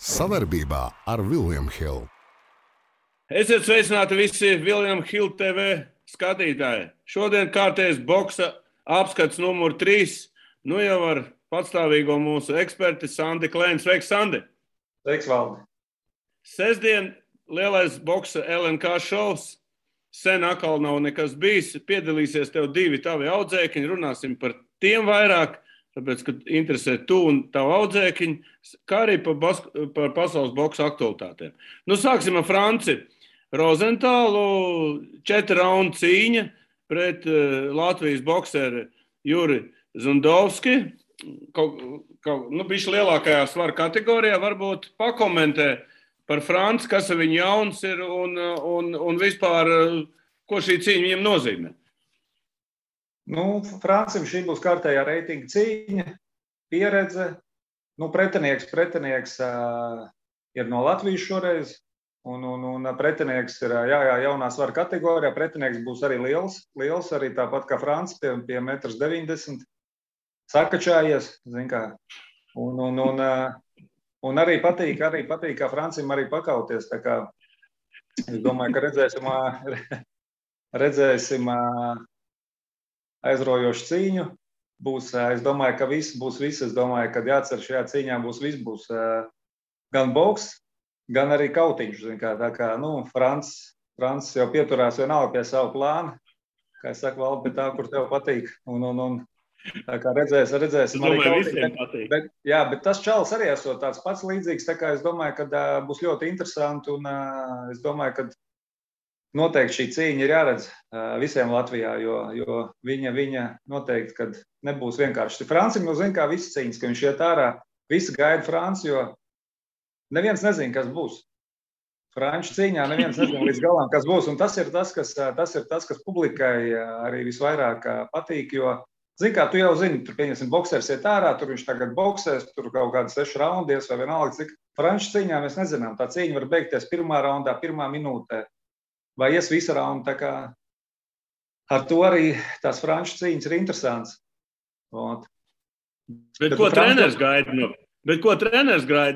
Savarbībā ar William Hill. Esiet sveicināti visi William Hill TV skatītāji. Šodien kārtējs boksa apskats numur 3. Nu jau ar patstāvīgo mūsu eksperti Sandi Klēnu. Sveiks, Sandi! Sveiks, Valdi! Sestdien lielais boksa LNK šovs. Sen atkal nav nekas bijis. Piedalīsies tev 2 tavi audzēkiņi. Runāsim par tiem vairāk, tāpēc, ka interesē tu un tavu audzēkiņu, kā arī par pasaules boksa aktualitātēm. Nu, sāksim ar Franci. Rozentālu 4 raundu cīņa pret Latvijas bokseri Juri Zundovski. Bišķi lielākajā svara kategorijā varbūt pakomentē par Franci, kas ar viņu jauns ir un vispār, ko šī cīņa viņam nozīmē. Francim šī būs kārtējā reitinga cīņa, pieredze. Pretinieks ir no Latvijas šoreiz, un pretinieks ir jaunā svara kategorijā. Pretinieks būs arī liels arī tāpat kā Franci, pie 1,90 m. Sakačājies, zin kā. Un arī patīk, kā Francim arī pakauties. Tā kā es domāju, ka redzēsim aizraujošu cīņu. Es domāju, ka viss būs viss. Es domāju, ka jācer šajā cīņā būs viss. Būs gan boks, gan arī kautiņš. Tā kā Francis jau pieturās vienalga pie savu plānu. Kā es saku, Valdi, pie tā, kur tev patīk. Tā kā redzēsim arī kautiņu. Bet tas čalis arī esot tāds pats līdzīgs. Tā kā es domāju, ka būs ļoti interesanti. Un es domāju, ka noteikti šī cīņa ir jāredz visiem Latvijā, jo viņa noteikti, kad nebūs vienkārši. Francim jau zina, kā visas cīņas, ka viņš iet ārā, visi gaida Franci, jo neviens nezina, kas būs. Franču cīņā neviens nezina līdz galam, kas būs. Un tas ir tas, kas publikai arī visvairāk patīk, jo, zini, kā tu jau zini, tur, pieņemsim, boksers iet ārā, tur viņš tagad boksēs, tur kaut kādi 6 raundies vai vienalga, cik Franču cīņā mēs nezinām. Tā cīņa var beigties 1. raundā, 1. minūtē. Vai ies visa raunda, tā kā ar to arī tās Franču cīņas ir interesants. Bet ko treneris gaida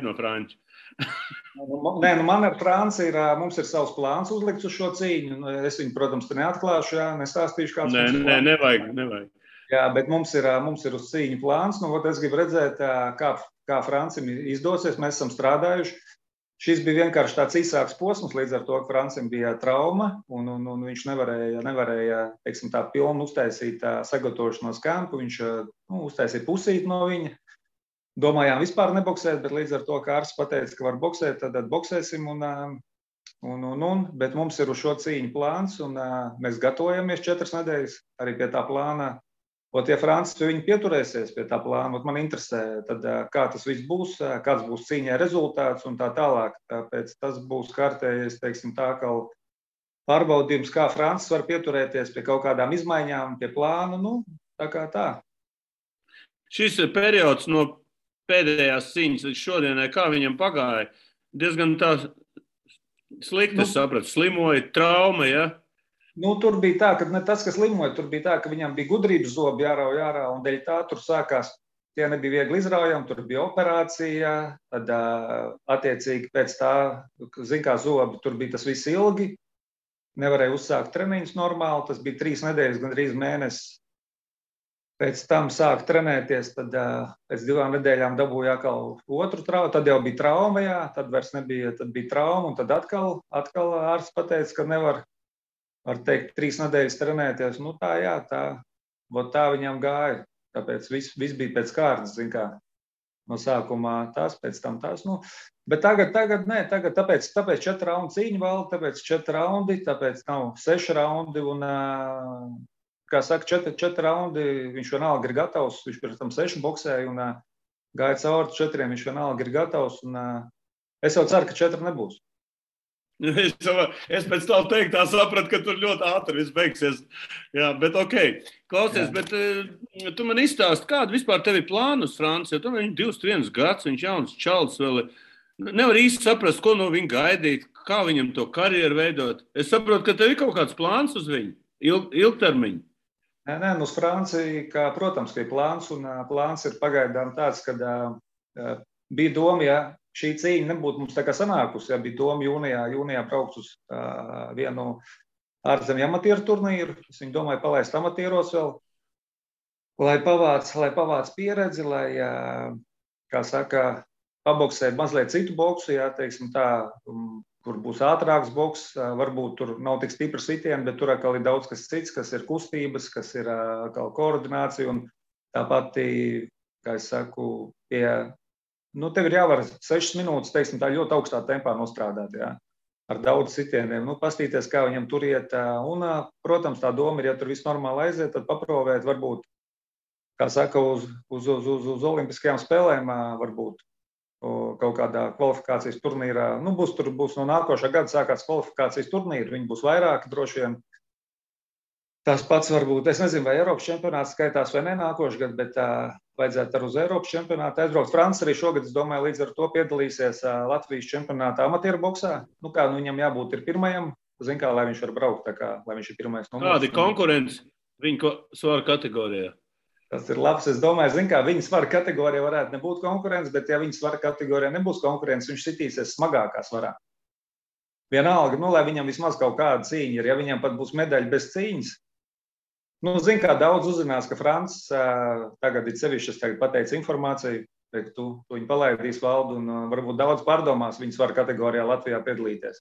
no Franča? Man ar Franci mums ir savs plāns uzlikts uz šo cīņu. Es viņu, protams, te neatklāšu, nestāstīšu, kāds mums ir plāns. Nevajag. Jā, bet mums ir uz cīņu plāns. Es gribu redzēt, kā Francim izdosies. Mēs esam strādājuši. Šis bija vienkārši tāds īsāks posms, līdz ar to, ka Francim bija trauma, un viņš nevarēja teiksim, tā pilnu uztaisīt sagatavošanos kampu. Viņš uztaisīja pusīti no viņa. Domājām vispār neboksēt, bet līdz ar to, ka ārsts pateica, ka var boksēt, tad boksēsim. Bet mums ir uz šo cīņu plāns, un mēs gatavojamies 4 nedēļas arī pie tā plāna. Ja Francis viņi pieturēsies pie tā plāna, man interesē, tad, kā tas viss būs, kāds būs cīņai rezultāts un tā tālāk. Tāpēc tas būs kārtējais, teiksim, tā kā pārbaudījums, kā Francis var pieturēties pie kaut kādām izmaiņām, pie plāna, tā kā tā. Šis periods no pēdējās cīņas līdz šodienai, kā viņam pagāja, diezgan tā slikti, sapratu, slimoja, trauma, ja? Tur bija tā, ka ne tas, kas slimoja, tur bija tā, ka viņam bija gudrības zobi jārauj ārā, un dēļ tā tur sākās, tie nebija viegli izraujami, tur bija operācija, tad attiecīgi pēc tā, zin kā zobi, tur bija tas viss ilgi, nevarēja uzsākt treniņus normāli, tas bija 3 nedēļas, gandrīz mēnesis. Pēc tam sāk trenēties, tad pēc 2 nedēļām dabūja atkal otru traumu, tad jau bija trauma, tad vairs nebija, tad bija trauma, un tad atkal ārsts pateica, ka nevar. Var teikt, 3 nedēļas trenēties. Tā viņam gāja. Tāpēc viss bija pēc kārtas, zin kā. No sākumā tās, pēc tam tās. Bet tagad nē, tāpēc 4 raundi cīņa valda, tāpēc 4 raundi, tāpēc nav 6 raundi. Un, kā saka, 4 raundi, viņš vienalga ir gatavs. Viņš pēc tam 6 boksēja un gāja cauri 4, viņš vienalga ir gatavs. Un, es jau ceru, ka 4 nebūs. Es pēc tam teikt, tā sapratu, ka tur ļoti ātri viss beigsies. Jā, bet ok. Klausies, bet tu man izstāsti, kādu vispār tev ir plānu uz Franci, jo tu viņš 21 gads, viņš jauns čalis vēl. Nevar īsti saprast, ko no viņa gaidīt, kā viņam to karjeru veidot. Es saprotu, ka tev ir kaut kāds plāns uz viņu, ilgtermiņu. Nē, uz Franciju, protams, ka ir plāns, un plāns ir pagaidām tāds, kad bija doma, šī cīņa nebūtu mums tā kā sanākusi, ja bija doma jūnijā braukt uz vienu ārzemju amatieru turnīru. Es viņu domāju palaist amatieros vēl, lai pavāc pieredzi, lai, kā saka, paboksē mazliet citu boksu, jā, teiksim tā, kur būs ātrāks boks, varbūt tur nav tik stipri sitieni, bet tur atkal ir daudz kas cits, kas ir kustības, kas ir atkal koordinācija un tāpat, kā es saku, tev ir jāvar 6 minūtes, teiksim, tā ļoti augstā tempā nostrādāt, jā, ar daudz sitieniem, pastīties, kā viņam tur iet, un, protams, tā doma ir, ja tur viss normāli aiziet, tad paprovēt, varbūt, kā saka, uz olimpiskajām spēlēm, varbūt, kaut kādā kvalifikācijas turnīrā, būs no nākošā gada sākās kvalifikācijas turnīri, viņi būs vairāki droši vien. Tas pats varbūt, es nezinu, vai Eiropas čempionāts skaitās vai ne nākošais gads, bet vajadzētu ar uz Eiropas čempionātu aizbraukt. Francis arī šogad, es domāju, līdz ar to piedalīsies Latvijas čempionātā amatieru boksā. Viņam jābūt ir pirmajam, zin kā, lai viņš var braukt, tā kā, lai viņš ir pirmais numurs. Kādi konkurence viņa svara kategorijā? Tas ir labs, es domāju, zin kā, viņa svara kategorijā varētu nebūt konkurence, bet ja viņa svara kategorijā nebūs konkurence, viņš sitīsies smagākā svarā. Vienalga, lai viņam vismaz kaut kāda cīņa ir, ja viņam pat būs medaļa bez cīņas. Zin kā, daudz uzzinās, ka Francis tagad ir sevišķi, es tagad pateicu informāciju, tu viņu palaidīs valdu un varbūt daudz pārdomās viņa svara kategorijā Latvijā piedalīties.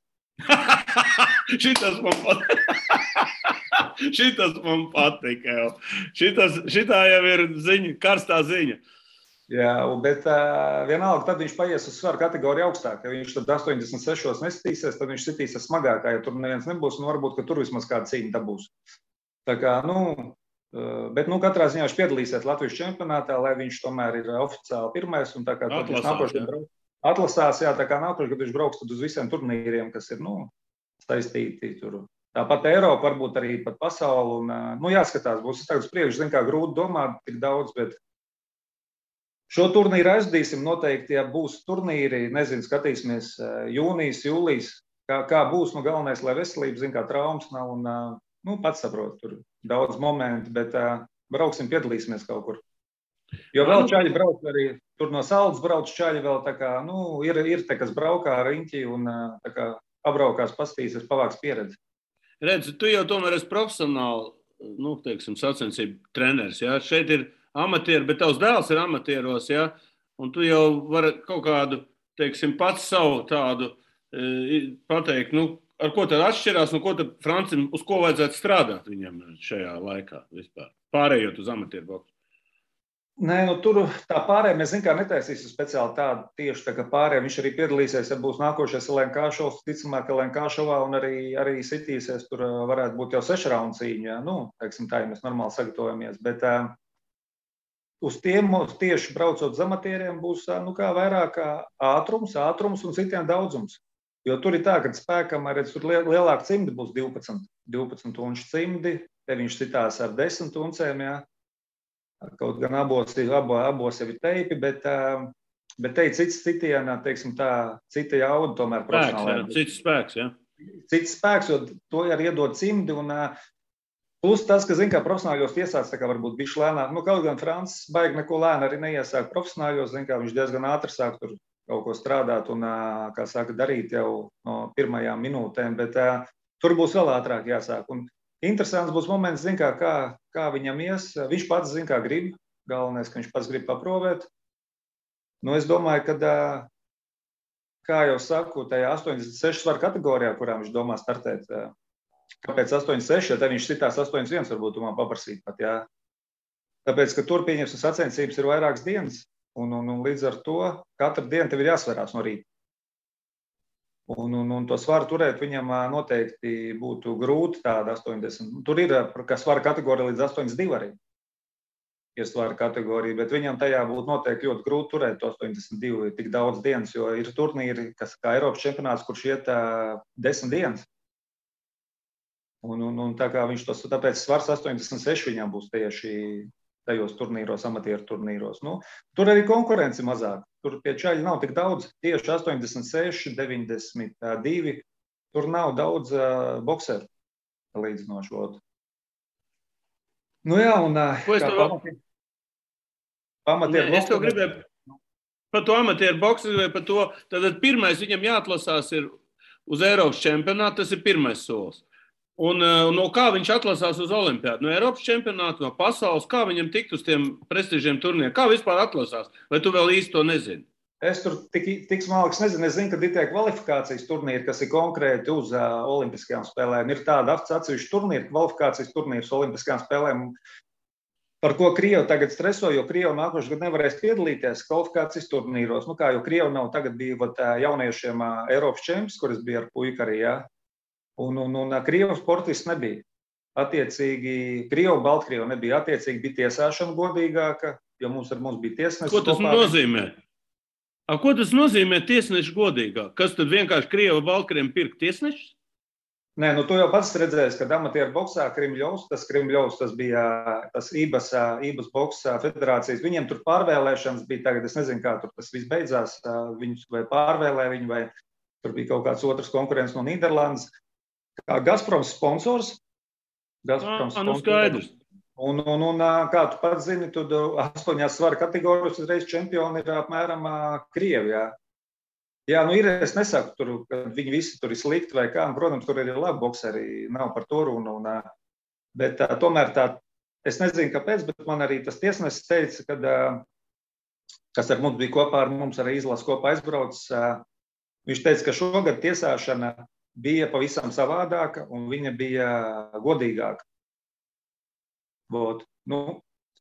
Šitas man patika jau. Šitā jau ir ziņa, karstā ziņa. Jā, bet vienalga, tad viņš paies uz svaru kategoriju augstāk. Ja viņš tad 86 nesitīsies, tad viņš sitīsies smagākā, ja tur neviens nebūs, un varbūt, ka tur vismaz kāda cīņa dabūs. Tā kā, bet katrā ziņā viņš piedalīsies Latvijas čempionātā, lai viņš tomēr ir oficiāli pirmais, un tā kā tad viņš atlasās, jā, tā kā nākošais, kad viņš brauks tad uz visiem turnīriem, kas ir, saistīti tur. Tāpat Eiropa, varbūt arī pat pasauli, un, jāskatās, būs tagad uz priekšu, zin kā, grūti domāt tik daudz, bet šo turnīru aizdīsim noteikti, ja būs turnīri, nezinu, skatīsimies jūnijas, jūlijas, kā būs, galvenais, lai veselība, zin kā, traumas nav, un, pats saprot, tur daudz momentu, bet brauksim, piedalīsimies kaut kur. Jo vēl čaļi brauc arī, tur no Saldas brauc čaļi vēl, tā kā, ir te, kas braukā ar riņķi un tā kā pabraukās, pastīsies, pavāks pieredzi. Redzi, tu jau tomēr esi profesionāli, sacensību treneris, jā? Šeit ir amatieri, bet tavs dēls ir amatieros, jā? Un tu jau vari kaut kādu, pats savu tādu pateikt, ar ko tad atšķirās, un ko tad Francim, uz ko vajadzētu strādāt viņam šajā laikā vispār, pārējot uz amatieru boksu? Nē, tur tā pārējā mēs, zin kā, netaisīsim speciāli tādu tieši tā kā pārējā. Viņš arī piedalīsies, ja būs nākošais LNK šovs, ticamāk, LNK šovā, un arī sitīsies, tur varētu būt jau 6 raundu cīņa, tā, ja mēs normāli sagatavojamies, bet uz tiem tieši braucot uz amatieriem būs, kā vairāk ātrums un citiem daudzums. Jo tur ir tā, ka spēkam, redz, tur lielāka cimdi būs 12 unču cimdi, te viņš citās ar 10 uncēm, jā. Kaut gan abos jau ir teipi, bet te ir cits citienā, teiksim tā, cita jauda tomēr profesionālajā. Cits spēks, jā. Cits spēks, jo to arī iedod cimdi, un plus tas, ka, zin kā, profesionāļos iesāc, tā kā varbūt bišķi lēnāk, kaut gan Francis baigi neko lēni arī neiesāk profesionāļos, zin kā, viņš diezgan ātri sāk tur kaut ko strādāt un, kā saka, darīt jau no pirmajām minūtēm, bet tur būs vēl ātrāk jāsāk. Un interesants būs moments, zin kā viņam ies. Viņš pats, zin kā, grib. Galvenais, ka viņš pats grib paprovēt. Es domāju, ka, kā jau saku, tajā 86 svaru kategorijā, kurā viņš domā startēt, kāpēc 86, ja te viņš sitās 81, varbūt tu man paprasīt pat, jā. Tāpēc, ka tur pieņemsim sacensības ir vairākas dienas, un līdz ar to katru dienu tev ir jāsverās no rīta. Un to svaru turēt viņam noteikti būtu grūti tāda 80. Tur ir, ka svara kategorija līdz 82 arī. Ir svara kategorija, bet viņam tajā būtu noteikti ļoti grūti turēt to 82 tik daudz dienas, jo ir turnīri, kas kā Eiropas čempionāts, kurš iet 10 dienas. Un tā kā viņš tāpēc svars 86 viņam būs tieši tajos turnīros, amatieru turnīros. Tur arī konkurence mazāk. Tur pie čaļi nav tik daudz. Tieši 86, 92. Tur nav daudz bokseru līdzinošo. Jā, un pamatieru. Es to gribēju. Par to amatieru boksu vai par to, tad pirmais viņam jāatlasās ir uz Eiropas čempionātu, tas ir pirmais solis. Un no kā viņš atlasās uz olimpiādu? No Eiropas čempionāta, no pasaules, kā viņam tikt uz tiem prestižiem turnīriem? Kā vispār atlasās? Vai tu vēl īsti to nezini? Es tur tik smalks nezinu. Es zinu, ka ir tie kvalifikācijas turnīri, kas ir konkrēti uz olimpiskajām spēlēm. Ir tāda atsevišķa turnīra, kvalifikācijas turnīrs olimpiskajām spēlēm, par ko Krievi tagad streso, jo Krievi nākošais gadu nevarēs piedalīties kvalifikācijas turnīros. Nu kā, jo Krievi nav tagad bija jauniešiem Eiropas čempions, kuras bija ar puiku arī, jā. Un Krievu sportists nebija. Attiecīgi, Krievu, Baltkrievu nebija. Attiecīgi bija tiesāšana godīgāka, jo mums bija tiesnesis. Ko tas nozīmē? Ko tas nozīmē tiesneši godīgāk? Kas tad vienkārši Krievu, Baltkrieviem pirkt tiesnešus? Nē, tu jau pats redzēsi, ka amatieru boksā Krimļovs, tas bija tas IBAS boksa federācijas. Viņiem tur pārvēlēšanas bija tagad, es nezinu, kā tur tas viss beidzās. Viņus vai pārvēlē viņu, vai tur bija kaut kāds otrs konkurents no Nīderlandes. Kā Gazproms sponsors. Skaidrs. Un kā tu pats zini, tad 8 svara kategorijas uzreiz čempioni ir apmēram Krievi, jā. Jā, ir, es nesaku, ka viņi visi tur ir slikti vai kā, un, protams, tur ir labi bokseri, nav par to runu, bet tomēr es nezinu, kāpēc, bet man arī tas tiesnesis teica, kas ar mums bija kopā, ar mums arī izlases kopā aizbraucis, viņš teica, ka šogad tiesāšana bija pavisam savādāka, un viņa bija godīgāka.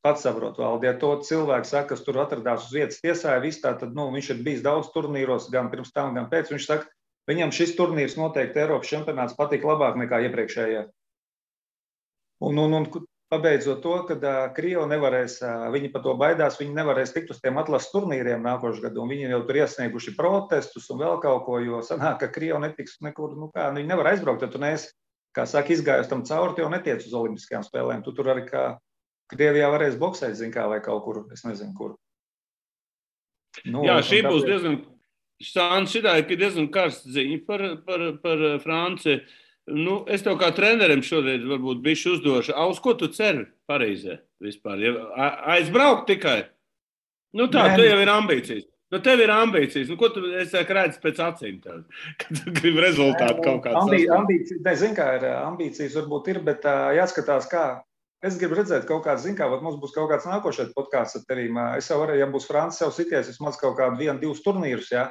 Pats saprot, Valdi, ja to cilvēku saka, kas tur atradās uz vietas tiesāja, tad viņš ir bijis daudz turnīros, gan pirms tam, gan pēc. Viņš saka, viņam šis turnīrs noteikti Eiropas čempionāts patīk labāk nekā iepriekšējie. Un pabeidzot to, kad Krievi nevarēs, viņi par to baidās, viņi nevarēs tikt uz tiem atlases turnīriem nākošais gadu, un viņi jau tur iesnieguši protestus un vēl kaut ko, jo sanāk, ka Krievi netiks nekur, viņi nevar aizbraukt, ja tu neesi, kā saka, izgājus tam cauri, tu jau netiec uz olimpiskajām spēlēm, tu tur arī kā Krievijā varēs boksēt, zin kā, vai kaut kur, es nezinu, kur. Jā, šī būs diezgan, šitā ir diezgan karsts ziņa par Franciju. Es tev kā trenerim šodien varbūt bišķi uzdošu. Uz ko tu ceri Parīzē vispār? Aizbraukt tikai? Tu jau ir ambīcijas. Tev ir ambīcijas. Ko tu redzi pēc acīm tev? Kad tu gribi rezultātu kaut kāds sasniegt? Ambīcijas, zin kā ir, ambīcijas varbūt ir, bet jāskatās kā. Es gribu redzēt kaut kāds, mums būs kaut kāds nākošais podkāsts ar tevīm. Es jau varēju, ja būs Francis jau sities, vismaz kaut kādu 1-2 turnīrus, jā.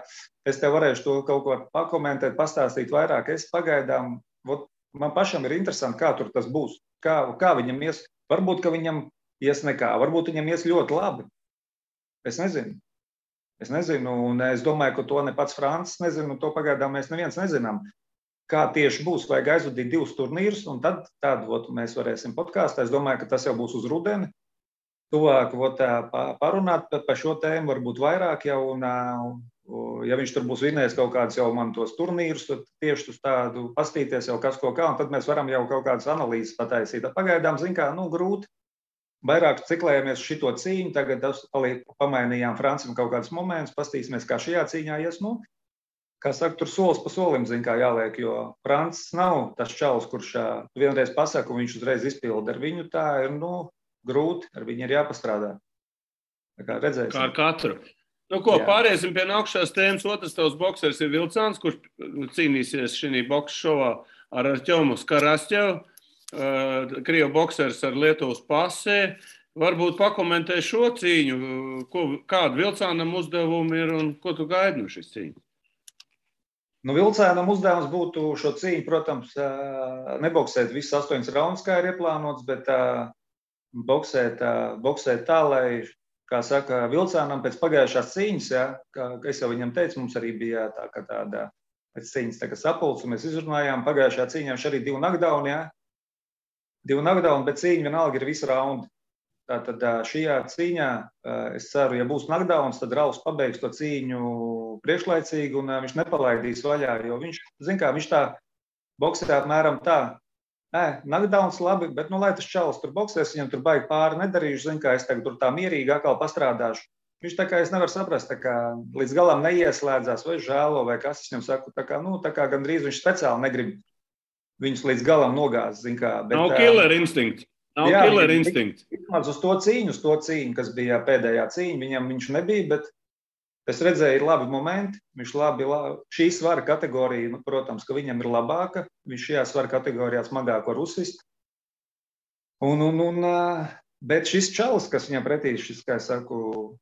Es tev varēšu to kaut ko pakomentēt, pastāstīt vairāk. Es pagaidām, man pašam ir interesanti, kā tur tas būs. Kā viņam ies, varbūt, ka viņam ies nekā, varbūt viņam ies ļoti labi. Es nezinu, un es domāju, ka to ne pats Francis nezinu, un to pagaidām mēs neviens nezinām. Kā tieši būs, vajag aizvadīt 2 turnīrus, un tad mēs varēsim podkāstā. Es domāju, ka tas jau būs uz rudeni. Tuvāk parunāt par šo tēmu, varbūt vairāk jau, un ja viņš tur būs vinējis kaut kādus jau man tos turnīrus, tad tieši uz tādu pastīties jau kas ko kā, un tad mēs varam jau kaut kādas analīzes pataisīt. Pagaidām, grūti. Vairāk ciklējamies šito cīņu, tagad pamainījām Francim kaut kādus momentus, pastīsimies, kā šajā cīņā ies, kā saka, tur solis pa solim, jāliek, jo Francis nav tas čalis, kurš vienreiz pasaka, un viņš uzreiz izpilda. Ar viņu tā ir, grūti, ar viņu ir jāpastrādā. Tā kā redzēsim. Kā ar katru. Pāriesim pie nākušās tēmas. Otrs tavs boksers ir Vilcāns, kurš cīnīsies šī boksa šovā ar Artjomu Skarastjevu. Krievu boksers ar Lietuvas pasē. Varbūt pakomentē šo cīņu, kādu Vilcānam uzdevumi ir un ko tu gaidi no šīs cīņas? Vilcēnam uzdevums būtu šo cīņu, protams, neboksēt visus 8 raundus, kā ir ieplānots, bet boksēt tā, lai, kā saka, Vilcēnam pēc pagājušās cīņas, kā es jau viņam teicu, mums arī bija tāda pēc cīņas sapulce, mēs izrunājām, pagājušā cīņā viņš arī 2 knockdown, 2 knockdown, bet cīņa vienalga ir visi raundi. Tātad šajā cīņā, es ceru, ja būs knockdowns, tad Ralfs pabeigs to cīņu priekšlaicīgi un viņš nepalaidīs vaļā, jo viņš tā boksē apmēram tā. Knockdowns labi, bet lai tas čalis tur boksēs, viņam tur baigi pāri nedarīšu, es tagad tur tā mierīgi atkal pastrādāšu. Viņš tā kā es nevaru saprast, tā kā līdz galam neieslēdzās vai žēlo vai kas, es viņam saku, tā kā gandrīz viņš speciāli negrib viņus līdz galam nogāzt, Nav killer instinkts. Uz to cīņu, kas bija pēdējā cīņa, viņš nebija, bet Es redzēju, ir labi momenti, viņš šī svara kategorija, protams, ka viņam ir labāka, viņš šajā svara kategorijā smagāko rusist. Bet šis čalis, kas viņam pretī, šis, kā saku,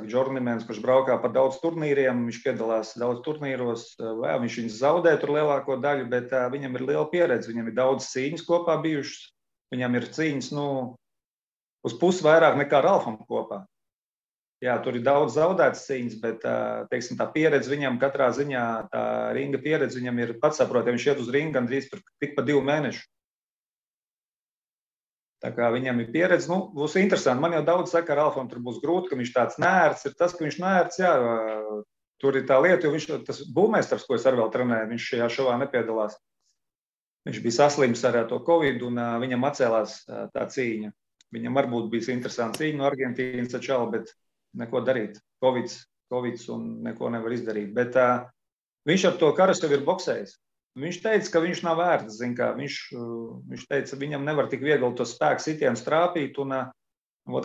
Džornimens, kurš braukā par daudz turnīriem, viņš piedalās daudz turnīros, viņš viņus zaudē tur lielāko daļu, bet viņam ir liela pieredze, viņam ir daudz cīņas kopā bijušas, viņam ir cīņas, uz pusi vairāk nekā Ralfam kopā. Jā, tur ir daudz zaudētas cīņas, bet, teiksim, tā pieredze viņam katrā ziņā, tā ringa pieredze viņam ir pats saprot, ja viņš iet uz ringu gandrīz tik pa 2 mēnešu. Tā kā viņam ir pieredze, būs interesanti. Man jau daudz saka, Ralfam tur būs grūti, ka viņš tāds nērts ir. Tas, ka viņš nērts, jā, tur ir tā lieta, jo viņš, tas būvmeistars, ko es arī vēl trenēju, viņš šajā šovā nepiedalās. Viņš bija saslims ar to Covid un viņam atcēlās tā cīņa. Viņam varbūt bijis interesanti cīņa no Argentīnas ar čalu, bet neko darīt. Covids un neko nevar izdarīt. Bet viņš ar to Karasevu ir boksējis. Viņš teica, ka viņš nav vērts, zin kā, viņš teica, viņam nevar tik viegli to spēku sitienu strāpīt, un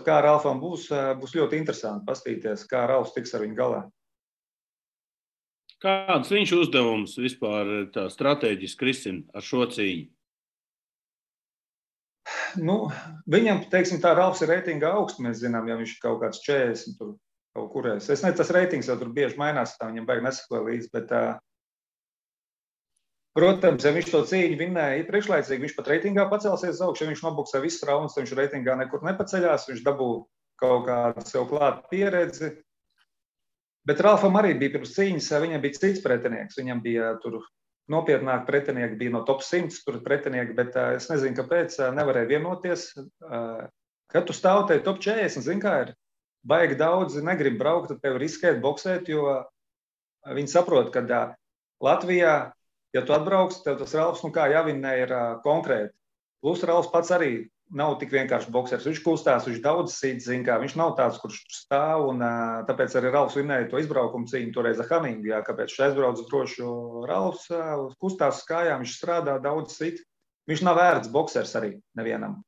kā Ralfam būs ļoti interesanti pastīties, kā Ralfs tiks ar viņu galā. Kāds viņš uzdevums vispār tā strateģiski risina ar šo cīņu? Viņam, teiksim, tā Ralfs ir reitinga augsts, mēs zinām, ja viņš ir kaut kāds 40 tur kaut kurēs. Es nezinu, tas reitings jau tur bieži mainās, tā viņam baigi nesakoja līdzi, bet protams, ja viņš to cīņu vinnēja priekšlaicīgi, viņš pat reitingā pacelsies augšu, ja viņš nobuksē visus raundus, tad viņš reitingā nekur nepaceļās, viņš dabū kaut kādu sev klātu pieredzi. Bet Ralfam arī bija pirms cīņas, viņam bija cits pretinieks, viņam bija tur nopietnāk pretinieki, bija no top 100 tur pretinieki, bet es nezinu, kāpēc nevarēja vienoties. Kad tu stāvotēji top 40, zin kā ir, baigi daudzi negrib braukt, tad tev riskēt boksēt, jo viņi saprot, ka Latvijā, ja tu atbrauks, tev tas Ralfs, jāvinnē ir konkrēti. Plus Ralfs pats arī nav tik vienkārši boksers. Viņš kustās, viņš daudz sit, zin kā, viņš nav tāds, kurš stāv, un tāpēc arī Ralfs vinnēja to izbraukumu cīņu toreiz ar Haningu, kāpēc viņš aizbrauc droši, jo Ralfs kustās uz kājām, viņš strādā daudz sit. Viņš nav vērts boksers arī nevienam.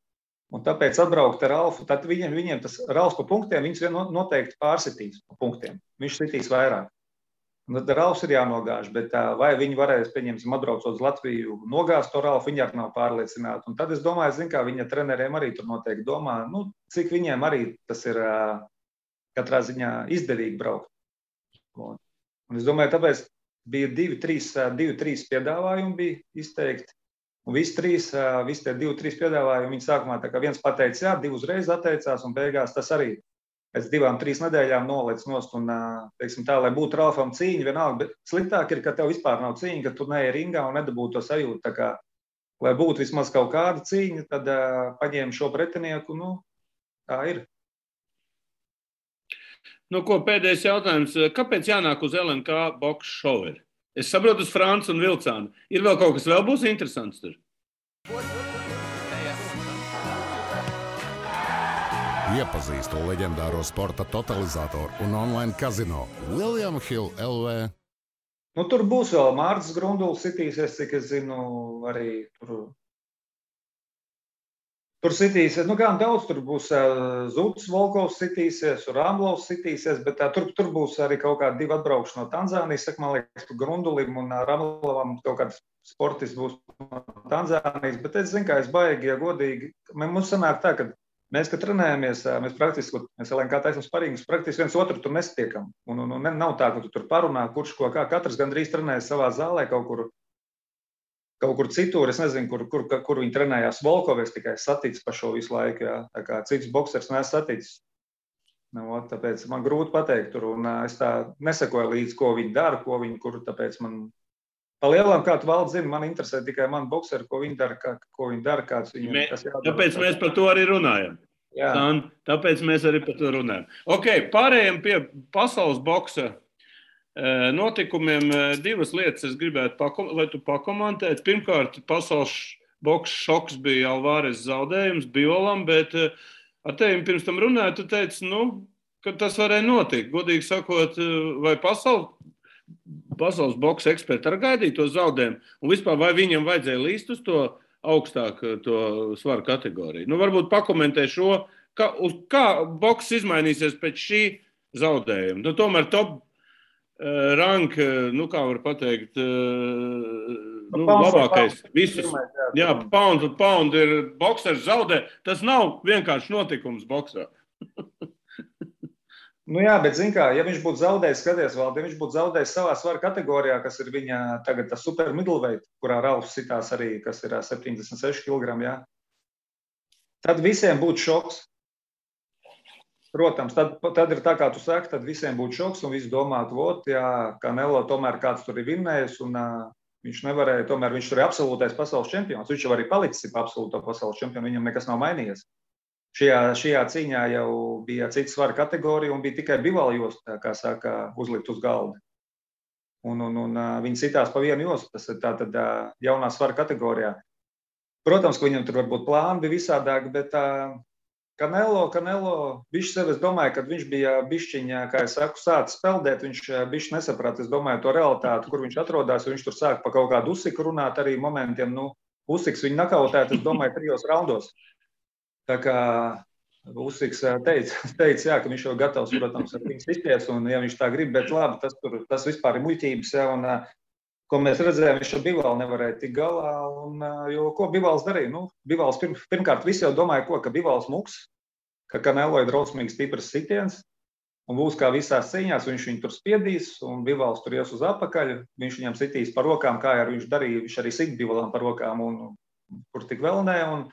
Un tāpēc atbraukt ar Ralfu, tad viņiem tas Ralfs pa punktiem, viņus noteikti pārsitīs pa punktiem. Viņš sitīs vairāk. Un tad Ralfs ir jānogāž, bet vai viņi varēs, pieņemsim, atbraucot uz Latviju, nogāzt to Ralfu, viņi arī nav pārliecināti. Un tad es domāju, zin kā, viņa treneriem arī tur noteikti domā, cik viņiem arī tas ir katrā ziņā izdevīgi braukt. Un es domāju, tāpēc bija 2-3 piedāvājumi bija izteikti. Un visi tie 2-3 piedāvājumi, viņi sākumā tā kā viens pateica, jā, 2 uzreiz atteicās, un beigās tas arī pēc 2-3 nedēļām nolec nost, un, teiksim tā, lai būtu Ralfam cīņa vienalga, bet sliktāk ir, ka tev vispār nav cīņa, ka tu neej ringā un nedabūtu to sajūtu, tā kā, lai būtu vismaz kaut kāda cīņa, tad paņēma šo pretinieku, tā ir. Ko pēdējais jautājums, kāpēc jānāk uz LNK boks šoveri? Es saprotu uz Francu un Vilcānu. Ir vēl kaut kas vēl būs interesants tur? Iepazīstu leģendāro sporta totalizatoru un online kazino William Hill LV. Tur būs vēl Mārcis Grunduls sitīsies, cik es zinu, arī tur sitīsies. Gan daudz tur būs Zutis Volkovs sitīsies, Ramblovs sitīsies, bet tur būs arī kaut kādi 2 atbraukši no Tanzānijas. Man liekas, Grundulim un Ramblovam kaut kāds sportists būs no Tanzānijas, bet es zinu, kā es baigi, ja godīgi. Mums sanāk tā, ka mēs, kad trenējamies, mēs LNK taisam sparingus, praktiski viens otru tur nestiekam. Un nav tā, ka tu tur parunā, kurš ko kā. Katrs gandrīz trenējas savā zālē kaut kur citur. Es nezinu, kur viņi trenējās. Volkovies tikai saticis pa šo visu laiku. Jā. Tā kā cits boksers nes saticis. Tāpēc man grūti pateikt tur. Un es tā nesakoju līdz, ko viņi dara, tāpēc man pa lielām, kā tu valdi zini, man interesē tikai man bokseri, ko viņi dara, kāds viņiem. Tāpēc mēs par to arī runājam. Jā. Tāpēc mēs arī par to runājam. Pārējiem pie pasaules boksa notikumiem 2 lietas es gribētu, lai tu pakomentētu. Pirmkārt, pasaules boksa šoks bija Alvarez zaudējums Biolam, bet ar tevi pirms tam runāju, tu teici, ka tas varēja notikt. Godīgi sakot, vai pasaules boksa eksperti arī gaidīja to zaudējumu, un vispār vai viņam vajadzēja līst uz to augstāku to svaru kategoriju? Varbūt pakomentē šo, kā boks izmainīsies pēc šī zaudējuma. Tomēr top rank, kā var pateikt, labākais. Visus, jā, pound ir boksers zaudē. Tas nav vienkārši notikums boksā. Jā, bet zin kā, ja viņš būtu zaudējis, skaties vēl, ja viņš būtu zaudējis savā svara kategorijā, kas ir viņa tagad tas super middleweight, kurā Ralfs sitās arī, kas ir 76 kg, jā, tad visiem būtu šoks. Protams, tad ir tā, kā tu saki, tad visiem būtu šoks un visi domātu, Canelo tomēr kāds tur ir vinnējis un viņš nevarēja, tomēr viņš tur ir absolūtais pasaules čempions. Viņš jau arī palicis absolūto pasaules čempionu, viņam nekas nav mainījies. Šajā cīņā jau bija cita svara kategorija un bija tikai Bivol josta, kā saka, uzlikt uz galda. Un viņi citās pa vienu jostu, tas ir tātad jaunā svara kategorijā. Protams, ka viņam tur varbūt plāni bija visādāk, bet Canelo, viņš sev, es domāju, kad viņš bija bišķiņā, kā es saku, sācis peldēt, viņš bišķi nesaprata, es domāju, to realitāti, kur viņš atrodās, viņš tur sāk pa kaut kādu Usiku runāt arī momentiem, Usiks viņu nakautēt, es domāju, 3 raundos. Tā kā Usiks teica, ka viņš jau gatavs, protams, ar viņu sisties, un ja viņš tā grib, bet labi, tas vispār ir muļķības, un ko mēs redzējām, viņš ar Bivolu nevarēja tik galā, jo ko Bivols darīja? Bivols pirmkārt visi jau domāja, ka Bivols muks, ka Canelo ir drausmīgs stiprs sitiens, un būs kā visās cīņās, viņš viņu tur spiedīs, un Bivols tur ies uz apakaļ, viņš viņam sitīs par rokām, kā arī viņš darīja, viņš arī sit Bivolam par rokām, un kur tik vēl ne, un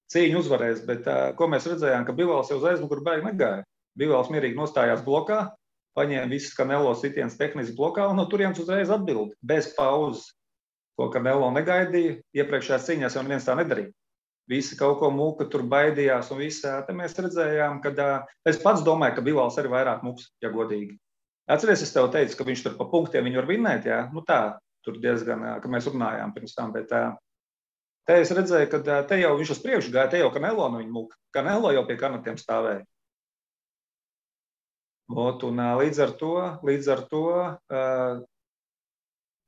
cīņu uzvarēs, bet ko mēs redzējām, ka Bivols jau uz aizmuguru baigi negāja. Bivols mierīgi nostājās blokā, paņēma visas Canelo sitienas tehniski blokā un no turienes uzreiz atbildi, bez pauzes, ko Canelo negaidīja. Iepriekšējās cīņās jau neviens tā nedarīja. Visi kaut ko muka tur baidījās un visā. Te mēs redzējām, ka es pats domāju, ka Bivols arī vairāk muks, ja godīgi. Atceries, es tev teicu, ka viņš tur pa punktiem viņu var vinnēt, jā? Tā, tur diezgan, ka mēs runājām pirms tam, bet te es redzēju, ka te jau viņš uz priekšu gāja, te jau Canelo no viņa muka. Canelo jau pie kanatiem stāvēja. Un līdz ar to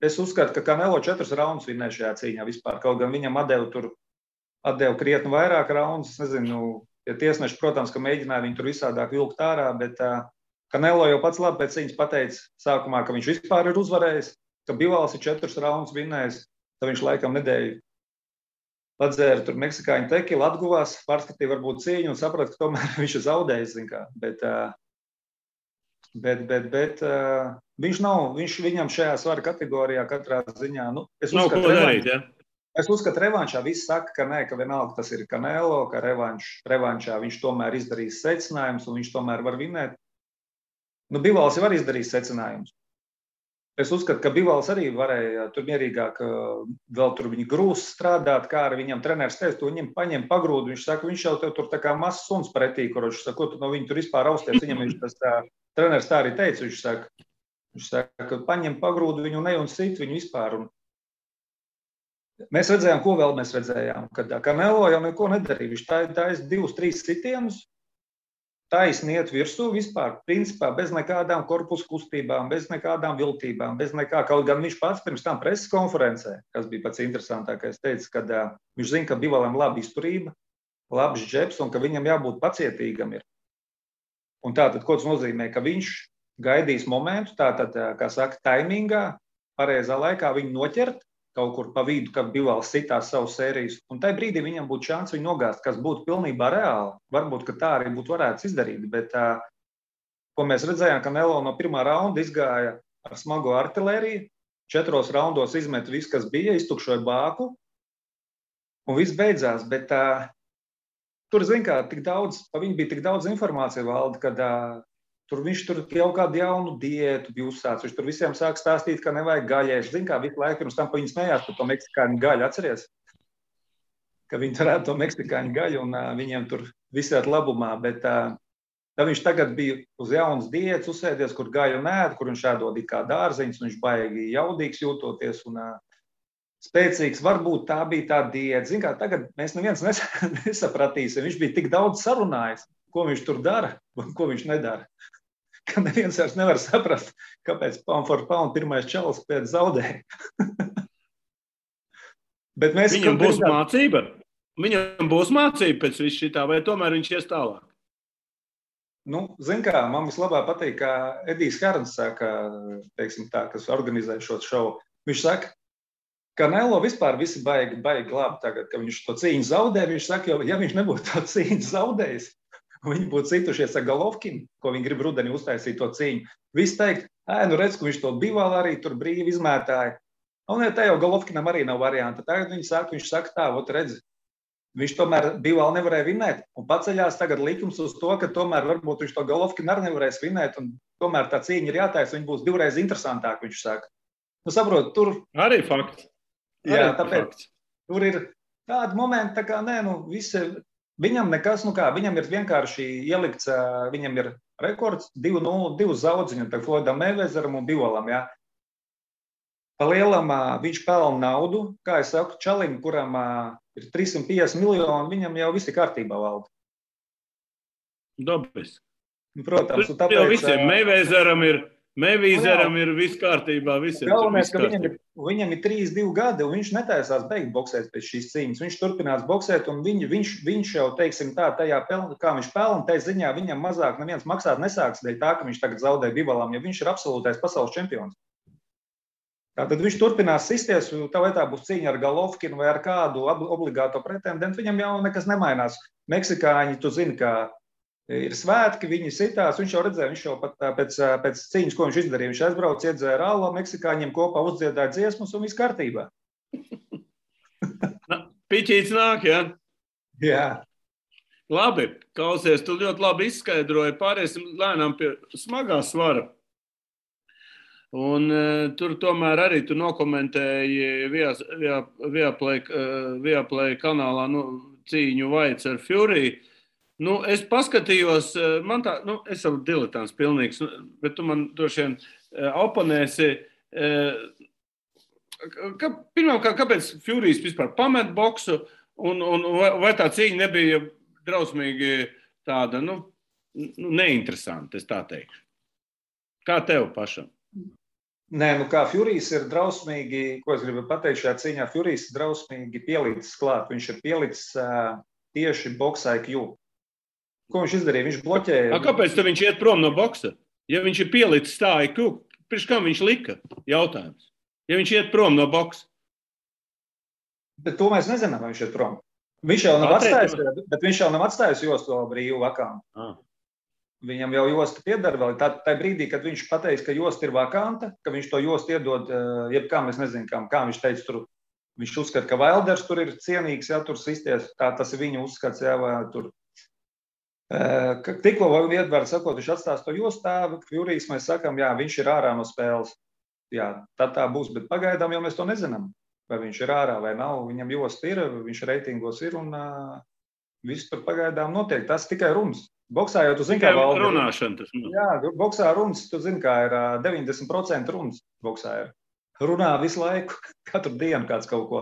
es uzskatu, ka Canelo 4 raundus vinnēja šajā cīņā vispār. Kaut gan viņam atdeva krietni vairāk raundus. Es nezinu, ja tiesneši, protams, ka mēģināja viņu tur visādāk vilkt ārā, bet Canelo jau pats labi pēc cīņas pateica sākumā, ka viņš vispār ir uzvarējis, ka Bivols ir 4 raundus vinnējis, tad viņš laikam nedēļu padzēra tur meksikāņu tekilu, atguvās, pārskatīja varbūt cīņu un saprata, ka tomēr viņš ir zaudējis, zin kā. Bet viņam šajā svara kategorijā katrā ziņā, es uzskatu revanšā, visi saka, ka nē, ka vienalga tas ir Canelo, ka revanšā viņš tomēr izdarīs secinājumus un viņš tomēr var vinnēt. Bivols jau var izdarīt secinājumus. Es uzskatu, ka Bivols arī varēja tur mierīgāk vēl tur viņa grūs strādāt, kā arī viņam treneris teica, to viņam paņem pagrūdu, viņš saka, viņš jau tev tur tā kā mazs suns pretī, kur viņš saka, ko tu no viņa tur vispār austies, viņam viņš tas treneris tā arī teica, viņš saka, paņem pagrūdu viņu ne un sit viņu vispār. Un mēs redzējām, ko vēl mēs redzējām, kad Canelo jau neko nedarīja, viņš taisa 2-3 sitienus, taisni iet virsū vispār, principā bez nekādām korpusu kustībām, bez nekādām viltībām, bez nekā, kaut gan viņš pats pirms tam preses konferencē, kas bija pats interesantākais, teica, kad viņš zina, ka Bivolam laba izturība, labs džebs un ka viņam jābūt pacietīgam ir. Un tātad, ko tas nozīmē, ka viņš gaidīs momentu, tātad, kā saka, taimingā, pareizā laikā viņu noķert, kaut kur pa vidu, kad Bivols sitās savu sērijas, un tajā brīdī viņam būtu šāns viņu nogāzt, kas būtu pilnībā reāli. Varbūt, ka tā arī būtu varēts izdarīt, bet ko mēs redzējām, ka Canelo no pirmā raunda izgāja ar smago artilēriju, 4 raundos izmet visu, kas bija, iztukšoja bāku, un viss beidzās, bet tur, zin kā, pa viņu bija tik daudz informācija valda, kad viņš tur jau kādu jaunu diētu bija uzsācis. Viņš tur visiem sāk stāstīt, ka nevajag gaļēs. Zin kā, visu laiku pirms tam pa viņu smējās par to meksikāņu gaļu. Atceries? Ka viņi turētu to meksikāņu gaļu un viņiem tur visāt labumā. Bet tad viņš tagad bija uz jaunas diētas uzsēdies, kur gaļu nēd, kur viņš ēdod kā dārziņus, un viņš baigi jaudīgs jūtoties un spēcīgs. Varbūt tā bija tā diēta. Zin kā, tagad mēs neviens nesapratīsim. Viņš bija tik daudz sarunājis, ko viņš tur dara un ko viņš nedara. Ka neviens vairs nevar saprast, kāpēc pound for pound pirmais čalis pēc zaudēja. Viņam būs mācība? Viņam būs mācība pēc visu šitā, vai tomēr viņš ies tālāk? zin kā, man vislabāk patīk, kā Edijs Herns saka, teiksim tā, kas organizē šo šovu. Viņš saka, ka Canelo vispār visi baigi labi tagad, ka viņš to cīņu zaudē. Viņš saka, jo, ja viņš nebūtu to cīņu zaudējis, viņi būtu citušies ar Golovkinu, ko viņi grib rudenī uztaisīt to cīņu. Visi teikt, redz, ka viņš to Bivālu arī tur brīvi izmētāja. Un ja te jau Golovkinam arī nav varianta. Tagad viņš saka tā, redz, viņš tomēr Bivālu nevarēja vinēt. Un paceļās tagad likums uz to, ka tomēr varbūt viņš to Golovkinu arī nevarēs vinēt. Un tomēr tā cīņa ir jātaisa, viņa būs divreiz interesantāk, viņš saka. Saprot, tur... Arī fakts. Jā, tāpēc tur ir tādi momenti, tā kā visi... Viņam nekas, viņam ir vienkārši ielikts, viņam ir rekords 2-0, 2 zaudziņu, tā Floydam Meivezeram un Bivalam, jā. Pa lielam viņš pelna naudu, kā es saku, čalim, kuram ir 350 miljoni, viņam jau viss ir kārtībā valda. Dabis. Protams, un tāpēc... Jau visiem Meivezeram ir viss kārtībā, visiem galvenais, ka viņam ir 3-2 gadi, un viņš netaisās beigt boksēt pēc šīs cīņas. Viņš turpinās boksēt, un viņš jau, teiksim tā, tajā kā viņš pelna, tai ziņā viņam mazāk neviens maksāt nesāks dēļ tā, ka viņš tagad zaudē Bivalam, jo viņš ir absolūtais pasaules čempions. Tātad viņš turpinās sisties, vai tā būs cīņa ar Golovkinu vai ar kādu obligāto pretendentu, viņam jau nekas nemainās. Meksikāņi, tu zini, kā ir svētki, viņi sitās, viņš jau redzēja, viņš jau pat pēc cīņas, ko viņš izdarīja, viņš aizbrauc, iedzēra rālo, meksikāņiem kopā uzdziedāja dziesmas un viss kārtībā. Piķīts nāk, jā? Jā. Labi, klausies, tu ļoti labi izskaidroji, pāriesim lēnām pie smagā svara. Un tur tomēr arī tu nokomentēji Viaplay kanālā cīņu Vaids ar Fury. Es paskatījos, es esmu diletants pilnīgs, bet tu man droši vien oponēsi. Pirmkārt, kāpēc Furijs vispār pamet boksu, un vai tā cīņa nebija drausmīgi tāda, neinteresanta, es tā teikšu. Kā tev pašam? Nē, kā Furijs ir drausmīgi, ko es gribu pateikt šajā cīņā, Furijs ir drausmīgi pielicis klāt. Viņš ir pielicis tieši box IQ. Ko viņš izdarīja? Viņš bloķēja. Kāpēc tad viņš iet prom no boksa? Ja viņš ir pielicis tā IQ, pirms kam viņš lika? Jautājums. Ja viņš iet prom no boksa? Bet to mēs nezinām, vai viņš iet prom. Viņš jau nav atstājis jostu brīvu vakantu. Viņam jau josta piedara vēl. Tā brīdī, kad viņš pateiks, ka josta ir vakanta, ka viņš to jostu iedod, jebkām, es nezinu, kā viņš teica tur. Viņš uzskata, ka Wilders tur ir cienīgs, jā, tur sisties. Tas ir viņa uzskats, jā, vai tur. Tikko iedvar sakot, viņš atstās to jostā, Furijs mēs sakam, jā, viņš ir ārā no spēles. Jā, tad tā būs, bet pagaidām jau mēs to nezinām. Vai viņš ir ārā vai nav, viņam josta ir, viņš reitingos ir un viss tur pagaidām notiek. Tas tikai runas. Boksā jau tu zini, kā valda. Runāšana tas. Jā, boksā runas, tu zini, kā ir 90% runas boksā ir. Runā visu laiku, katru dienu kāds kaut ko.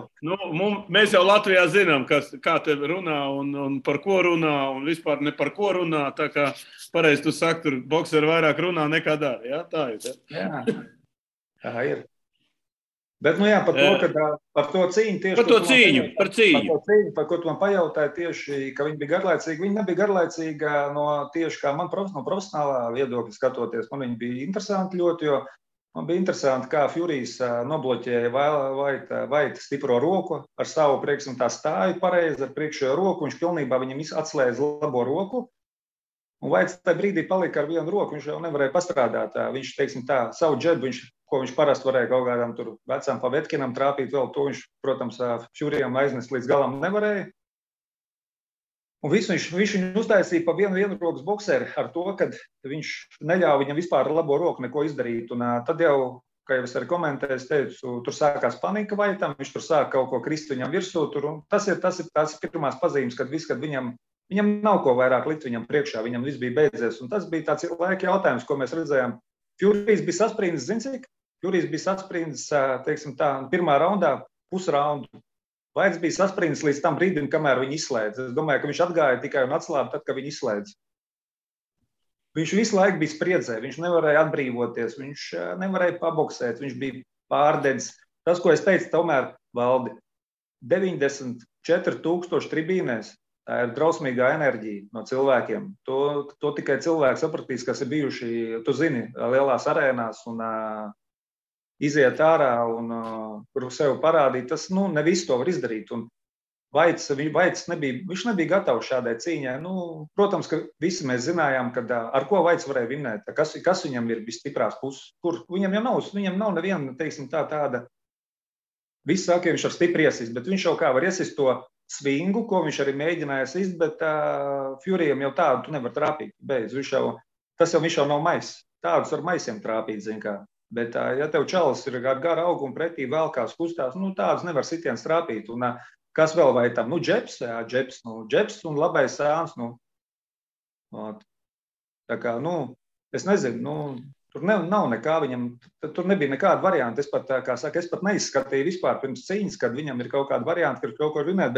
Mēs jau Latvijā zinām, kā te runā un par ko runā un vispār ne par ko runā. Tā kā pareizi tu saki, tur bokseri vairāk runā nekā dara. Jā, tā ir. Jā, tā ir. Bet, par to cīņu tieši... Par cīņu. Par ko tu man pajautāji tieši, ka viņi bija garlaicīgi. Viņi nebija garlaicīgi tieši kā man no profesionālā viedokļa skatoties. Man viņi bija interesanti ļoti, jo man bija interesanti, kā Furijs nobloķēja Vaita stipro roku ar savu priekšam tā stāju pareizi ar priekšējo roku. Viņš pilnībā viņam atslēdz labo roku. Un Vaits tajā brīdī palika ar vienu roku. Viņš jau nevarēja pastrādāt. Viņš, teiksim tā, savu džebu, ko viņš parasti varēja kaut kādam tur vecām Pavetkinam trāpīt vēl, to viņš, protams, Furijam aiznest līdz galam nevarēja. Un visu viņš viņu uztaisīja pa vienu rokas bokseri ar to, ka viņš neļāva viņam vispār ar labo roku neko izdarīt. Un tad jau, kā jau es arī komentēju, es teicu, tur sākās panika Vaitam, viņš tur sāk kaut ko krist viņam virsū. Tas ir pirmās pazīmes, kad viņam nav ko vairāk likt viņam priekšā, viņam viss bija beidzies. Un tas bija tāds laika jautājums, ko mēs redzējām. Furijs bija sasprindzis, zini cik? Furijs bija sasprindzis, teiksim tā, pirmā raundā pusraundu. Vaits bija sasprindzis līdz tam brīdim, kamēr viņi izslēdz. Es domāju, ka viņš atgāja tikai un atslāba tad, kad viņi izslēdz. Viņš visu laiku bija spriedzē, viņš nevarēja atbrīvoties, viņš nevarēja paboksēt, viņš bija pārdedzis. Tas, ko es teicu, tomēr valdi 94,000 tribīnēs. Tā ir drausmīgā enerģija no cilvēkiem. To tikai cilvēki sapratīs, kas ir bijuši, tu zini, lielās arēnās un iziet ārā un kur sev parādīt. Tas, ne visu to var izdarīt. Un Vaits nebija gatavs šādai cīņai. Protams, ka visi mēs zinājām, ar ko Vaits varēja vinnēt, kas viņam ir visstiprās puses. Viņam nav neviena, teiksim, tāda. Visi saka, ka viņš ar stipri iesist, bet viņš jau kā var iesist to svingu, ko viņš arī mēģināja sist, bet Furyam jau tādu tu nevar trāpīt. Viņš jau nav mais. Tādus ar maisiem trāpīt, zin kā. Bet, ja tev čalis ir ar garu augu un pretī vēlkās kustās, tādus nevar sitiens trāpīt. Un kas vēl vai tam? Džeps un labais sēns. Tā kā, es nezinu, tur nav nekā viņam, tur nebija nekāda varianta. Es pat neizskatīju vispār pirms cīņas, kad viņam ir kaut kāda varianta, ka kaut ko runāt,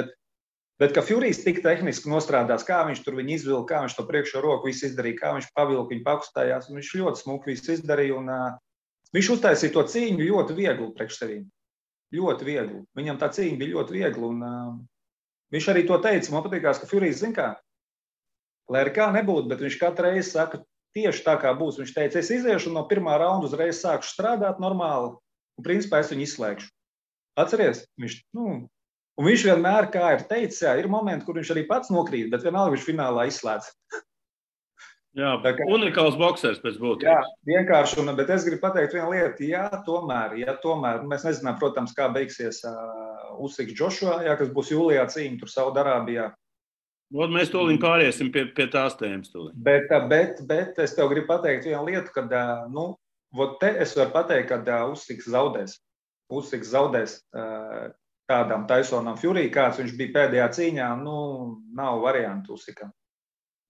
bet ka Furys tik tehniski nostrādās, kā viņš tur viņu izvilka, kā viņš to priekšo roku visu izdarīja, kā viņš pavilka, viņu pakustājās, un viņš ļoti smuki visu izdarīja, un viņš uztaisīja to cīņu ļoti viegli priekš sevīm. Ļoti viegli. Viņam tā cīņa bija ļoti viegli, un viņš arī to teica, man patīkās, ka Furys zin kā, lai arī kā nebūtu, bet viņš katru reizi saka, tieši tā kā būs. Viņš teica, es iziešu un no pirmā raunda uzreiz sākšu strādāt normāli, un principā es viņu izslēgšu. Atceries? Un viņš vienmēr, kā ir teicis, ir momenti, kur viņš arī pats nokrīt, bet vienalga viņš finālā izslēdz. Jā, unikāls boksers pēc būtības. Jā, vienkārši, bet es gribu pateikt vienu lietu, ja tomēr, mēs nezinām, protams, kā beigsies Usyks Joshua, kas būs jūlijā cīņa tur Saudarābijā. Mēs tūlīt pāriesim pie tās tēmas. Bet es tev gribu pateikt vienu lietu, kad, te es varu pateikt, kad Usyks zaudēs. Usyks zaudēs tādām Tysonam Fury, kāds viņš bija pēdējā cīņā, nav variantu Usykam.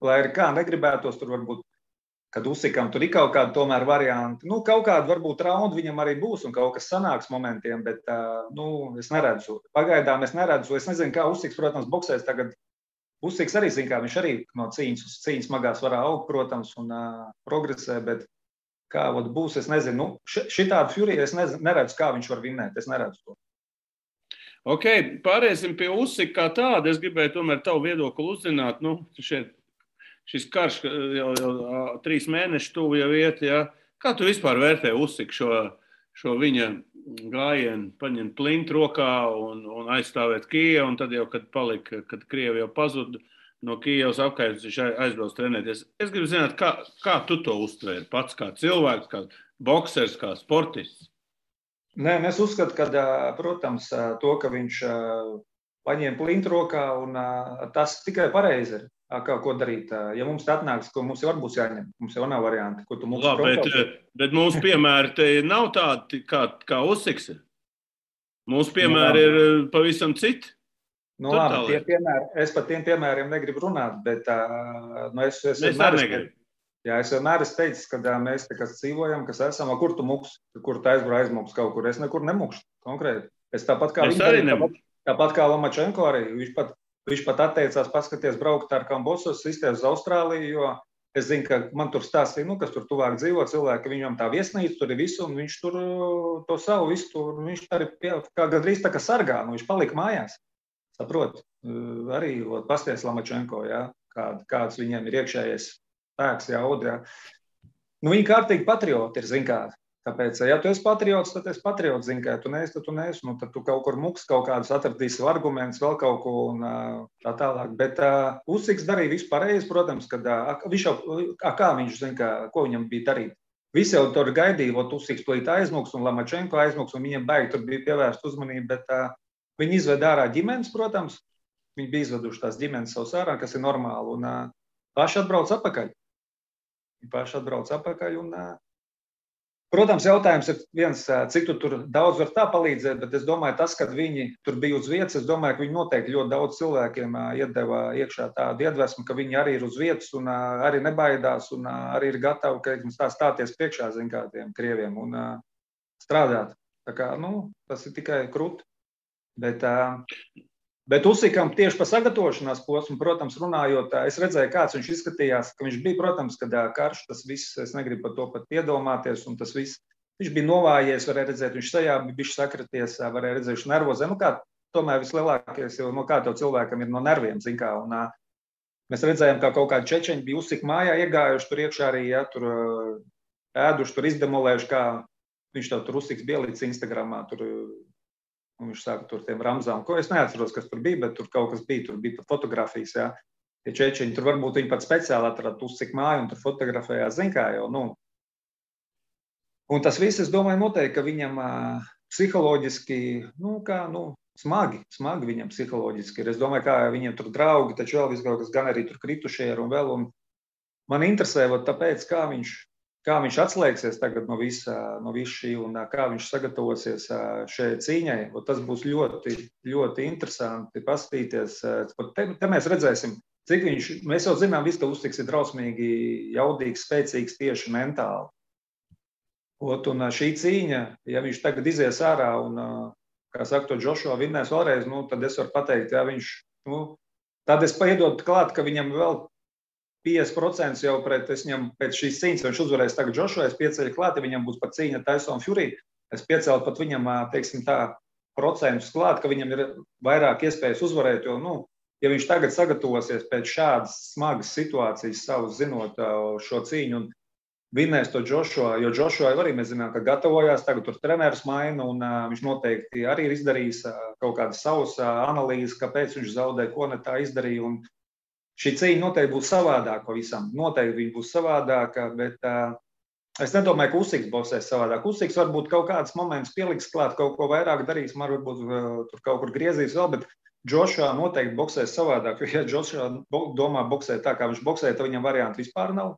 Lai arī kā negribētos, tur varbūt, kad Usykam tur ir kaut kāda tomēr varianti. Kaut kāda varbūt raunda viņam arī būs un kaut kas sanāks momentiem, bet es neredzu. Pagaidām es neredzu. Es nezinu, kā Usyks, protams, boksēs tagad. Usyks arī zina, kā viņš arī no cīņas uz cīņas smagā svarā aug, protams, un progresē, bet kā būs, es nezinu. Šitādu Fury es neredzu, kā viņš var vinnēt. Es neredzu to. Ok, pāriesim pie Usyka kā tāda. Es gribēju tomēr tavu viedokli uzzināt. Šis karš jau 3 mēneši tuvu jau iet. Ja? Kā tu vispār vērtē Usyku šo viņa gājienu, paņemt plintu rokā un aizstāvēt Kijevu, un tad jau, kad Krievi jau pazuda no Kijevas apkārt, viņš aizbrauc trenēties. Es gribu zināt, kā tu to uztvēri pats, kā cilvēks, kā boksers, kā sportists? Nē, es uzskatu, ka, protams, to, ka viņš paņēma plintu rokā, un tas tikai pareizi ir. Ko darīt? Ja mums tā atnāks, ko mums jau būs jāņem, mums jau nav varianti, ko tu mums bet mūsu piemēri te nav tādi, kā Usyks ir. Mūsu piemēri ir pavisam citi. Labi, es par tiem piemēriem negribu runāt, bet es vienmēr esmu teicis, ka mēs te, kas dzīvojam, kas esam, kur tu muks, kur tu aizmuks kaut kur, es nekur nemukšu konkrēti. Es tāpat kā Lomačenko arī, viņš pat atteicās paskaties braukt ar Kambosos, izties uz Austrāliju, jo es zinu, ka man tur stāstīja, kas tur tuvāk dzīvo cilvēki, ka viņam tā viesnīca tur ir visu, un viņš tur to savu visu tur, viņš arī kā gandrīz tā kā sargā, viņš palika mājās. Saprot, arī pasties Lomačenko, kāds viņiem ir iekšējais spēks, audi. Viņi kārtīgi patrioti ir, zin kā. Tāpēc, ja tu esi patriots, tad esi patriots, zini, ka tu neesi, tad tu kaut kur muks kaut kādus atradīsi argumentus, vēl kaut ko un tā tālāk. Bet Usyks darīja visu pareizi, protams, kad viņš jau, kā viņš zina, ko viņam bija darīt. Visi jau tur gaidīja, Usyks plīt aizmuks un Lomačenko aizmuks, un viņiem baigi tur bija pievērst uzmanību, bet viņi izved ārā ģimenes, protams, viņi bija izveduši tās ģimenes savus ārā, kas ir normāli, un paši atbrauc apakaļ. Protams, jautājums ir viens, cik tu tur daudz var tā palīdzēt, bet es domāju, tas, kad viņi tur bija uz vietas, es domāju, ka viņi noteikti ļoti daudz cilvēkiem iedeva iekšā tādu iedvesmu, ka viņi arī ir uz vietas un arī nebaidās un arī ir gatavi, ka stāties priekšā, zin kā tiem krieviem un strādāt. Tā kā, tas ir tikai krūti. Bet Usykam tieši par sagatavošanās posmu, protams, runājot, es redzēju, kāds viņš izskatījās, ka viņš bija, protams, kad karš, tas viss, es negribu par to pat iedomāties, un tas viss, viņš bija novājies, varēja redzēt, viņš sajā bija bišķi sakraties, varēja redzēt, viņš nervozē, kā tomēr vislielākais, jo no kā tev cilvēkam ir no nerviem, zin kā, un mēs redzējām, kā kaut kādi čečeņi bija uzsik mājā iegājuši tur iekšā arī, ja, tur ēduši, tur izdemolējuši, kā viņš tev tur uzsiks bielīts Instagramā, tur, un viņš sāka tur tiem ramzām, ko es neatceros, kas tur bija, bet tur kaut kas bija, tur bija pat fotografijas, ja. Tie čečeņi, tur varbūt viņi pat speciāli atrada uzsik māju un tur fotografējās, zin kā jau, nu. Un tas viss, es domāju, noteikti, ka viņam psiholoģiski, smagi viņam psiholoģiski ir. Es domāju, kā viņiem tur draugi, taču vēl viskaut kas gan arī tur kritušie ir un vēl. Un man interesē, tāpēc, kā viņš atslēgsies tagad no visa šī un kā viņš sagatavosies šai cīņai. Tas būs ļoti, ļoti interesanti paskatīties. Te mēs redzēsim, cik mēs jau zinām, viss, ka Usiks ir drausmīgi jaudīgs, spēcīgs tieši mentāli. Un šī cīņa, ja viņš tagad izies ārā un, kā saka, to Joshua vinnēs vēlreiz, tad es varu pateikt, ja viņš, tad es paiedotu klāt, ka viņam vēl 50% jau pēc šīs cīņas, viņš uzvarēs tagad Joshua, es pieceļu klāt, ja viņam būs pat cīņa Tyson Fury, es piecēlu pat viņam, teiksim tā, procentus klāt, ka viņam ir vairāk iespējas uzvarēt, jo, ja viņš tagad sagatavosies pēc šādas smagas situācijas savus zinot šo cīņu un vinnēs to Joshua, jo Joshua arī mēs zinām, ka gatavojās, tagad tur treneris maina un viņš noteikti arī ir izdarījis kaut kādas savas analīzes, kāpēc viņš zaudē, ko ne tā izdarīja. Un šī cīņa noteikti būs savādāka pavisam. Noteikti viņa būs savādāka, bet es nedomāju, ka Usiks boksēs savādāk. Usiks varbūt kaut kāds moments pieliks klāt, kaut ko vairāk darīs, varbūt tur kaut kur griezīs vēl, bet Joshua noteikti boksēs savādāk, jo ja Joshua domā boksēt tā, kā viņš boksē, tad viņam variantu vispār nav.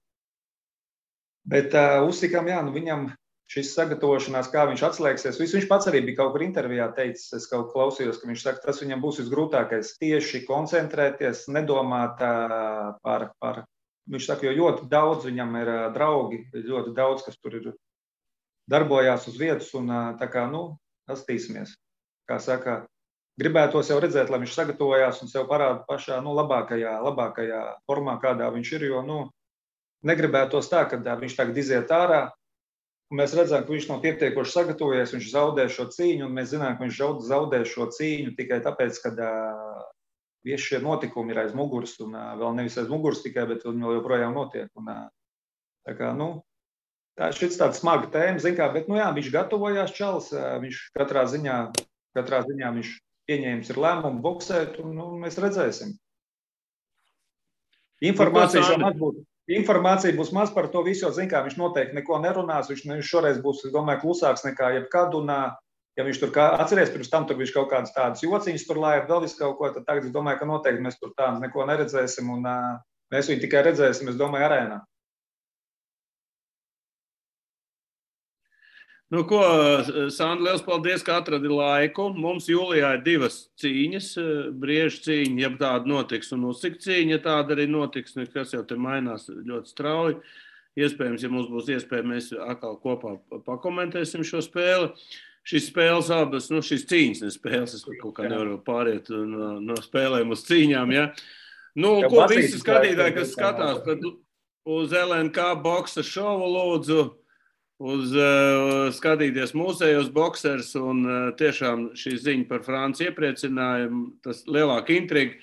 Bet Usikam, viņam šis sagatavošanās, kā viņš atslēgsies, viņš pats arī bija kaut kur intervijā teicis, es kaut klausījos, ka viņš saka, tas viņam būs visgrūtākais tieši koncentrēties, nedomāt par, viņš saka, jo ļoti daudz viņam ir draugi, ļoti daudz, kas tur ir darbojās uz vietas un tā kā, pastīsimies, kā saka, gribētos jau redzēt, lai viņš sagatavojās un sev parāda pašā, labākajā formā, kādā viņš ir, jo, negribētos tā, ka viņš tagad iziet ārā, un mēs redzam, ka viņš nav pietiekoši sagatavojies, viņš zaudē šo cīņu, un mēs zinām, ka viņš zaudē šo cīņu tikai tāpēc, ka visi šie notikumi ir aiz muguras, un vēl nevis aiz muguras tikai, bet viņi vēl joprojām notiek. Un, tā kā, tā ir šis tāds smaga tēma, zin kā, bet, viņš gatavojās čalis, viņš katrā ziņā viņš pieņēmis ir lēmumu boksēt, un mēs redzēsim. Informācija būs maz par to visu, jo, zin kā, viņš noteikti neko nerunās, viņš šoreiz būs, es domāju, klusāks nekā jebkad, un ja viņš tur atceries, pirms tam tur viņš kaut kādas tādas jociņas tur laiet, vēl visu kaut ko, tad tagad es domāju, ka noteikti mēs tur tādu neko neredzēsim, un mēs viņu tikai redzēsim, es domāju, arēnā. Ko, Sandra, liels paldies, ka atradi laiku. Mums jūlijā ir 2 cīņas, briežu cīņa, ja tāda notiks, un Usik cīņa, ja tāda arī notiks, kas jau te mainās ļoti strauji. Iespējams, ja mums būs iespēja, mēs atkal kopā pakomentēsim šo spēli. Šīs spēles abas, šīs cīņas, ne spēles, es kaut kā nevaru pāriet no spēlēm uz cīņām, ja. Ko visi skatītāji, kas skatās, tad uz LNK boksa šovu lūdzu, uz skatīties mūsējos boksers, un tiešām šī ziņa par Franciju iepriecinājumu, tas lielāka intriga,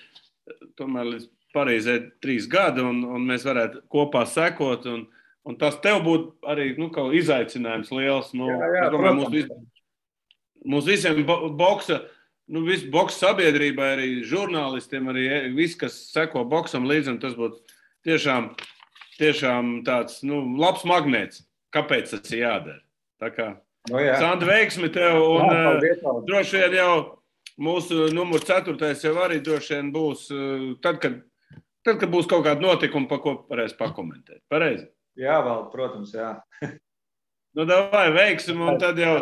tomēr līdz Parīzē 3 gadi, un mēs varētu kopā sekot, un tas tev būtu arī, kaut izaicinājums liels, jā, domāju, mūs visiem boksa, visu boksa sabiedrībai, arī žurnālistiem, arī viss, kas seko boksam līdzi, un tas būtu tiešām tāds, labs magnēts. Kāpēc tas ir jādara? Tā kā, Sandra, veiksmi tev, un droši vien jau mūsu numur 4. jau arī droši vien būs, tad, kad būs kaut kāda notikuma, pa ko varēs pakomentēt. Pareizi? Jā, vēl, protams, jā. Davai, veiksim, un tad jau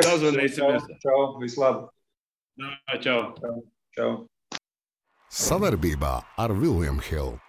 sazvanīsimies. Čau, vislabāk. Čau. Čau. Savarbībā ar William Hill.